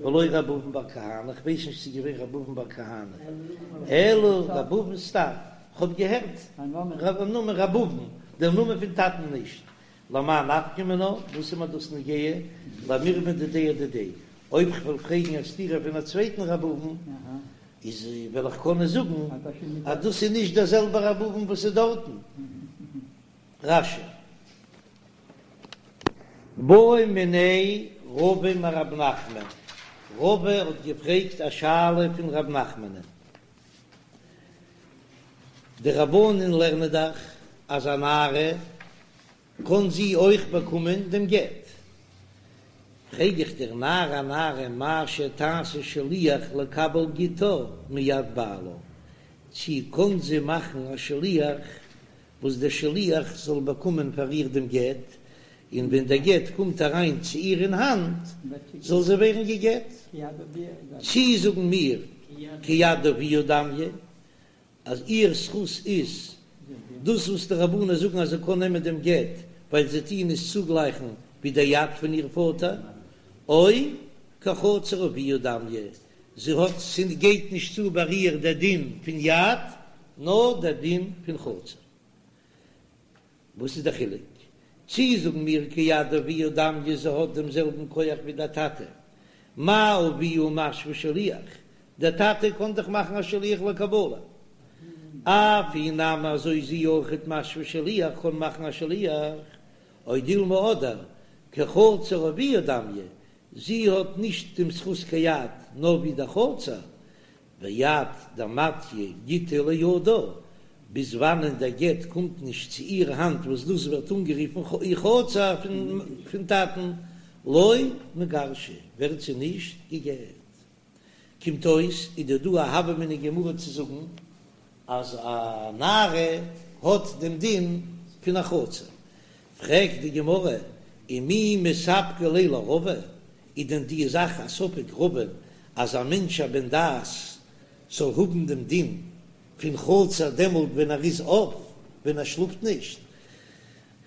ולא רב אבין בר כהנא, איך ווייס נישט צו ס'איז געווען רב אבין בר כהנא, אלא רב אבין סתם, כ'האב געהערט נאמען רב אבין, דער נאמען פון טאטן נישט, למאי נפקא מינה, וואס איז מיר דאס נוגע, למירמא דידיה אדידיה, אויב כ'וועל פרעגן א סתירה פון א צווייטן רב אבין, איז וועל איך קענען זאגן אז דאס איז נישט דער זעלבער רב אבין וואס איז דארטן. רש"י. בעא מיניה רבא מרב נחמן, רבא האט געפרעגט א שאלה פון רב נחמנ'ן. די רבנן לערנען דאך אז א נערה. קען זי אויך באקומען דעם גט. פרעג איך דיר נערה אנערה מהו שתעשה שליח לקבל גיטה מיד בעלה, צי קען זי מאכן א שליח וואס דער שליח זאל באקומען פאר איר דעם גט, און ווען דער גט קומט אריין צו איר אין האנט זאל זי ווערן גע'גט? צי זאגן מיר כיד אביה דמיא, אז איר זכות איז דאס וואס די רבנן זאגן אז זי קען נעמען דעם גט ווייל זיי טוען עס צוגלייכן ווי דער יד פון איר פאטער, או כחצר אביה דמיא, זי האט ס'גייט נישט צו ביי איר דער דין פון יד נאר דער דין פון חצר. וואס איז דער חילוק? צי זאגן מיר כיד אביה דמיא זי האט דעם זעלבן כח ווי דער טאטע, מה אביה משוי שליח, דער טאטע קען דאך מאכן א שליח לקבלה, אף היא נמי אזוי זי אויכעט משוי שליח קען מאכן א שליח, או דילמא אדער כחצר אביה דמיא, זי האט נישט דעם זכות כיד נאר ווי דער חצר, ועד דמטיא גיטא לידה, ביז וואנען דער גט קומט נישט צו איר האנט וואס דאס ווערט אנגערופן איר חצר פון טאטן, לא מיגרשא, ווערט זי נישט גע'גט. קומט אויס איז דא דא א הוה אמינא גמרא צו זאגן אז א נערה האט דעם דין פון א חצר. פרעגט די גמרא, ומי מספקא ליה לרבא, איז דען די זאך א ספק רבא'ן אז א מענטש א בן דעת זאל האבן דעם דין פון חצר דעמאלט ווען ער איז אויף, ווען ער שלאפט נישט?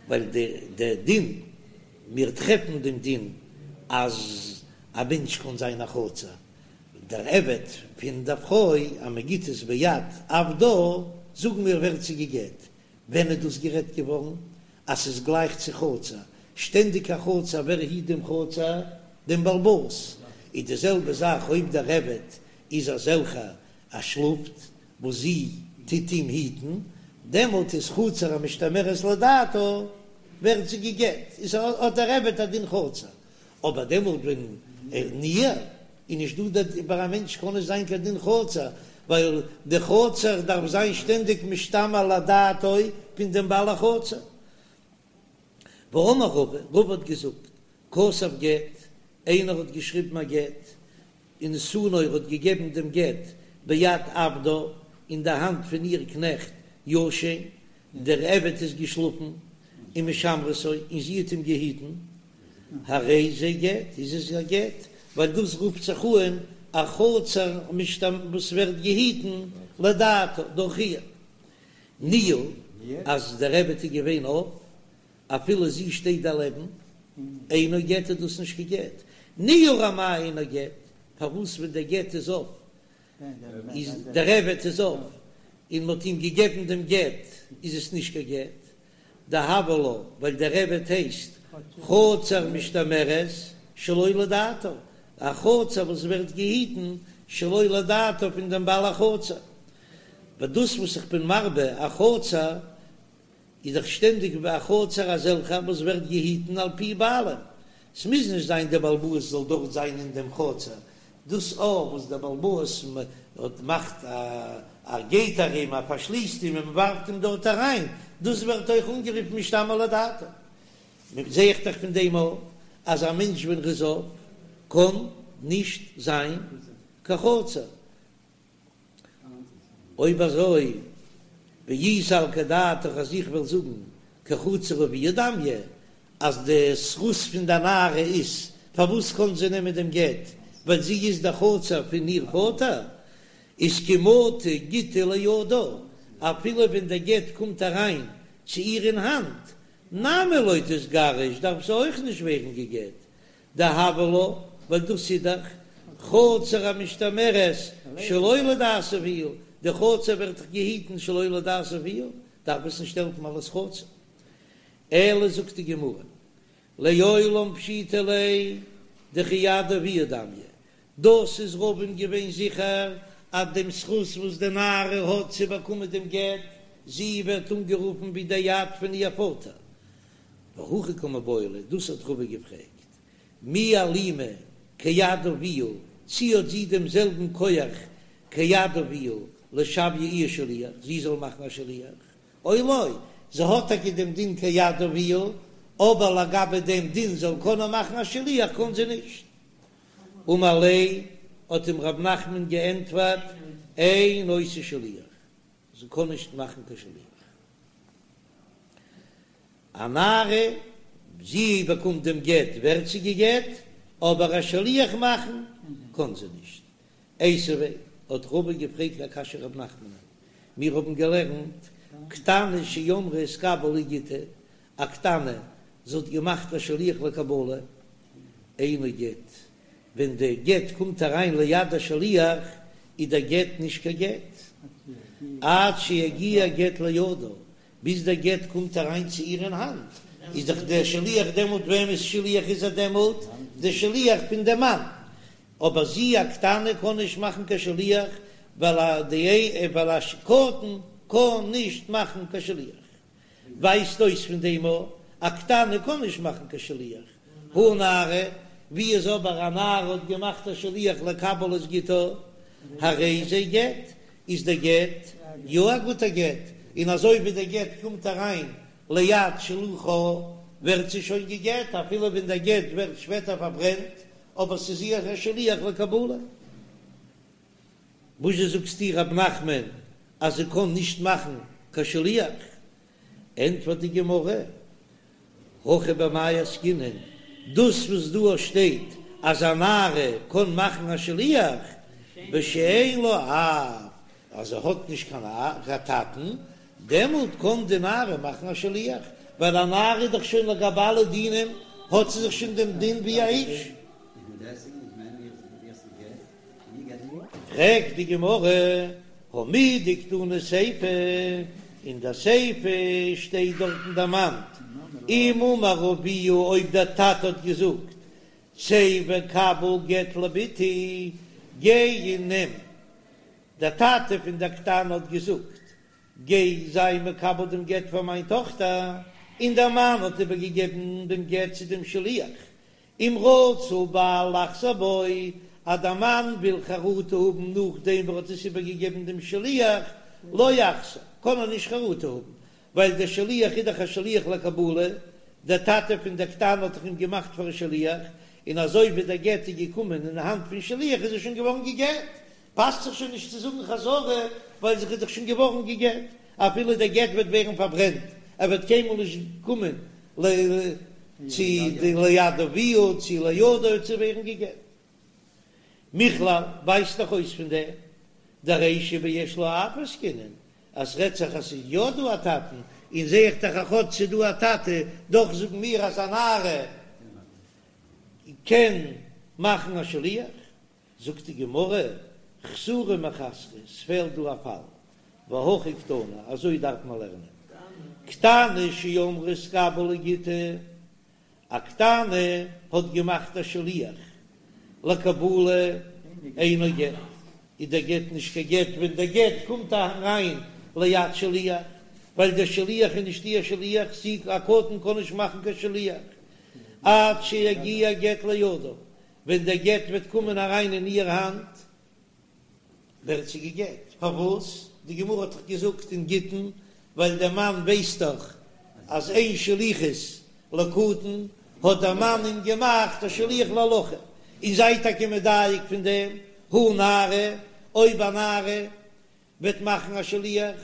ווייל די דין, מיר טרעפן דעם דין אז א מענטש קען זיין א חצר, דער עבד פון דער פרוי אז מען גיט עס ביד עבדה, זאגן מיר ווערט זי גע'גט, ווען איז דאס גערעדט געווארן אז ס'איז גלייך צו חצר? שטענדיג א חצר, ווער היט דעם חצר? דעם בעל הבית. איז די זעלבע זאך אויב דער עבד איז אזעלכער ער שלאפט וואס זי טוט אים היטן, דעמאלט איז חצר המשתמרת לדעתה, ווערט זי גע'גט, איז האט דער עבד א דין חצר. אבער דעמאלט ווען ער ניעור איז נישט דא דער ביי א מענטש קען נישט זיין קיין דין חצר, ווייל די חצר דארף זיין שטענדיג משתמר לדעתו פון דעם בעל החצר. ואמר רבא, רבא האט געזאגט, כתב גט, איינער האט געשריבן א גט, ונתנו ער האט געגעבן דעם גט ביד עבדה, אין די האנט פון איר קנעכט ישן, דער עבד איז געשלאפן, ומשמרתו, און זי האט אים געהיטן, הרי זה גט, איז עס א גט, ווייל דאס רופט זיך אן א חצר וואס ווערט געהיטן לדעתה דורך איר. ניעור, אז דער עבד איז געווען אויף, אפילו זי שטייט דערלעבן, אינו גט איז דאס נישט קיין גט. ניעור אמאי אינו גט, פארוואס ווען דער גט איז אויף, איז דער עבד איז אויף, און מ'האט אים געגעבן דעם גט, איז עס נישט קיין גט. דהוה לה, ווייל דער עבד הייסט חצר משתמרת שלא לדעתה, א חצר וואס ווערט געהיטן שלא לדעתה פון דעם בעל החצר. ווייל דאס וואס איך בין מרבה א חצר איז דאך שטענדיג ביי א חצר אזעלכע וואס ווערט געהיטן על פי בעלים, ס'מוז נישט זיין דער בעל הבית זאל דארט זיין אין דעם חצר, דאס אויך וואס דער בעל הבית האט מאכט א געיט ארום, ער פארשליסט אים און מ'ווארפט אים דארט אריין, דאס ווערט אויך אנגערופן משתמר לדעתו. זע איך דאך פון דעם אויך אז א מענטש ווען ר'איז אויף קען נישט זיין קיין חצר. אויב אזוי, ואי סלקא דעתך אז איך וועל זאגן כחצר אביה דמיא, אז די זכות פון די נערה איז פארוואס קען זי נעמען דעם גט, ווייל זי איז די חצר פון איר פאטער, איז כי מטא גיטא לידה, אפילו ווען דער גט קומט אריין צו איר אין האנט, נמי לא תיגרש, דארף זי אויך נישט ווערן גע'גט, דהוה לה, ווייל דאס איז דאך חצר המשתמרת שלא לדעת אביה, די חצר ווערט דאך געהיטן שלא לדעת אביה, דארף עס נישט העלפן אלס חצר. אלא זאגט די גמרא, לעולם פשיטא ליה דכיד אביה דמיא, דאס איז רבא'ן געווען זיכער אז דעם זכות וואס די נערה האט צו באקומען דעם גט, זי ווערט אנגערופן ווי די יד פון איר פאטער, והכי קא מיבעיא ליה, דאס האט רבא געפרעגט, מי אלימא כיד אביה, צי האט זי דעם זעלבן כח כיד אביה לשויי איהי שליח, זי זאל מאכן א שליח, או לא, זי האט טאקע דעם דין כיד אביה, אבער לגבי דעם דין זאל קענען מאכן א שליח קען זי נישט. אמר ליה, האט אים רב נחמן געענטפערט, אין עושה שליח, זי קען נישט מאכן קיין שליח. א נערה, זי באקומט דעם גט ווערט זי גע'גט, אבער א שליח מאכן קען זי נישט. איתיביה, האט רבא געפרעגט א קשיא רב נחמנ'ן, מיר האבן געלערנט קטנה שאמרה התקבל לי גיטי, א קטנה, זי האט געמאכט א שליח לקבלה, אינו גט, ווען די גט קומט אריין ליד השליח איז דער גט נישט קיין גט, עד שיגיע גט לידה, ביז דער גט קומט אריין צו איר אין האנט, איז דאך דער שליח דעמאלט וועמענס שליח איז ער דעמאלט? דער שליח פון דעם מאן, אבער זי א קטנה קען נישט מאכן קיין שליח, ווייל א די ווייל א קטן קען נישט מאכן קיין שליח. ווייזט אויס פון דעם א א קטנה קען נישט מאכן קיין שליח, הא נערה, ווי איז אבער א נערה האט געמאכט א שליח לקבל את גיטה, הרי זה גט, איז דער גט יא א גוטער גט, און אזוי ווי דער גט קומט אריין ליד שלוחה ווערט זי שוין גע'גט אפילו ווען דער גט ווערט שפעטער פארברענט, אבער ס'איז איר א שליח לקבלה. וואזשע זאגסטו רב נחמן אז זי קען נישט מאכן קיין שליח? ענטפערט די גמרא, הכא במאי עסקינן, דאס וואס דא שטייט אז א נערה קען מאכן א שליח בשאין לה אב, אז זי האט נישט קיין טאטן, דעמאלט קען די נערה מאכן א שליח, ווייל א נערה איז דאך שוין לגבי אלע דינים האט זי זיך שוין דעם דין ווי א איש. פרעגט די גמרא, הא מדקתני סיפא, אין די סיפא שטייט דארטן דערמאנט, אם אמר אביה אויב דער טאטע האט געזאגט, צא וקבל גט לבתי, גיי און נעם, דער טאטע פון דער קטנה האט געזאגט, גיי זיי מקבל דעם גט פאר מיין טאכטער, און דער מאן האט איבערגעגעבן דעם גט צו דעם שליח, אם רצה הבעל לחזור בו, אז דער מאן וויל חרטה האבן נאכדעם וואס ער האט עס איבערגעגעבן דעם שליח, לא יחזור, קען ער נישט חרטה האבן, ווייל דער שליח איז דאך א שליח לקבלה, דער טאטע פון דער קטנה האט דאך אים געמאכט פאר א שליח, און אזוי ווי דער גט איז געקומען אין האנט פון שליח איז ער שוין געווארן גע'גט, פאסט זיך שוין נישט צו זאגן חזרה, ווייל זי איז דאך שוין געווארן גע'גט, אפילו דער גט וועט ווערן פארברענט, ער וועט קיינמאל נישט קומען צו די ליד אביה צו לידה צו ווערן גע'גט. מכלל ווייזט דאך אויס פון דעם דרישא ביש לה אב עסקינן אז ס'רעדט זיך אז ס'איז יא דא א טאטן, און זעה איך דאך אז כאטש ס'איז דא א טאטע, דאך זאגן מיר אז א נערה קען מאכן א שליח. זאגט די גמרא, חסורי מחסרא, ס'פעלט דא א פאל, והכי קתני, אזוי דארף מען לערנען, קטנה שאמרה התקבל לי גיטי, א קטנה האט געמאכט א שליח לקבלה אינו גט, איז דער גט נישט קיין גט ווען דער גט קומט אריין ליד שליח, ווייל דער שליח איז נישט איר שליח, זי א קטן קען נישט מאכן קיין שליח עד שיגיע גט לידה, ווען דער גט וועט קומען אריין אין איהר האנט ווערט זי גע'גט, פארוואס? די גמרא האט דאך געזאגט אין גיטין, ווייל דער מאן ווייסט דאך אז אין שליחות לקטן, האט דער מאן אים געמאכט א שליח להולכה, און זיי טאקע מדייק פון דעם, הא נערה, אויב א נערה וועט מאכן א שליח,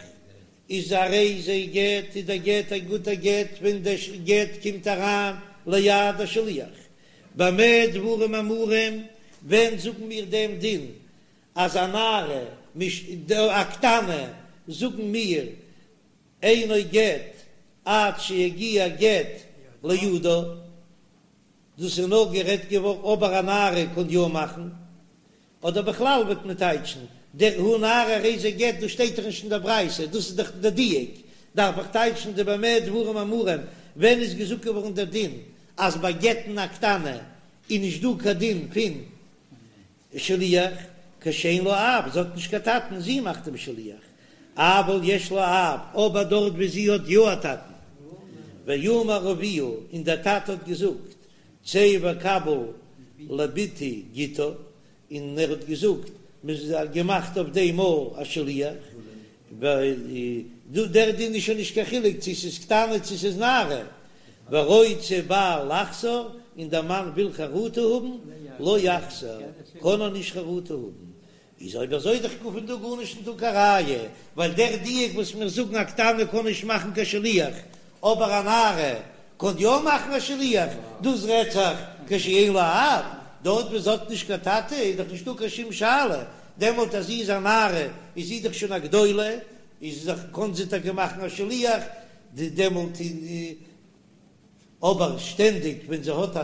איז הרי זה גט, איז דער גט א גוטער גט ווען דער גט קומט אריין ליד השליח. במה דברים אמורים, ווען זאגן מיר דעם דין אז א נערה, א קטנה, זאגן מיר אינו גט עד שיגיע גט לידה, דאס איז נאר גערעדט געווארן אבער א נערה קען יא מאכן, אדער בכלל וועט מען טייטשן דער הא נערה הרי זה גט, דאס שטייט דאך נישט אין דער ברייתא, דאס איז דאך דער דיוק, דארף איך טייטשן די במה דברים אמורים, ווען איז געזאגט געווארן דער דין אז ביי גט'ן א קטנה איז נישט דא קיין דין פון שליח, כשאין לה אב, זי האט נישט קיין טאטן, זי מאכט דעם שליח, אבל יש לה אב, אבער דארט ווי זי האט יא א טאטן, ואמר אביה, און דער טאטע האט געזאגט, צא וקבל לבתי גיטה, און ער האט געזאגט, מען האט געמאכט אויף דעם מאל א שליח. דער דין איז שוין נישט קיין חילוק צו ס'איז קטנה צו ס'איז נערה, ורוצה בעל לחזור, און דער מאן וויל חרטה האבן, לא יחזור, קען ער נישט חרטה האבן, איז אויב אזוי דאך פון דא גארנישט נישטא קיין ראיה, ווייל דער דיוק וואס מיר זאגן א קטנה קען נישט מאכן קיין שליח, אבער א נערה קען יא מאכן א שליח, דאס רעדט זיך כשאין לה אב, דארט וואו זי האט נישט קיין טאטע איז דאך נישטא קיין שום שאלה, דעמאלט אז זי איז א נערה איז זי דאך שוין א גדולה, איז דאך קען זי טאקע מאכן א שליח, דעמאלט אבער שטענדיג ווען זי האט א.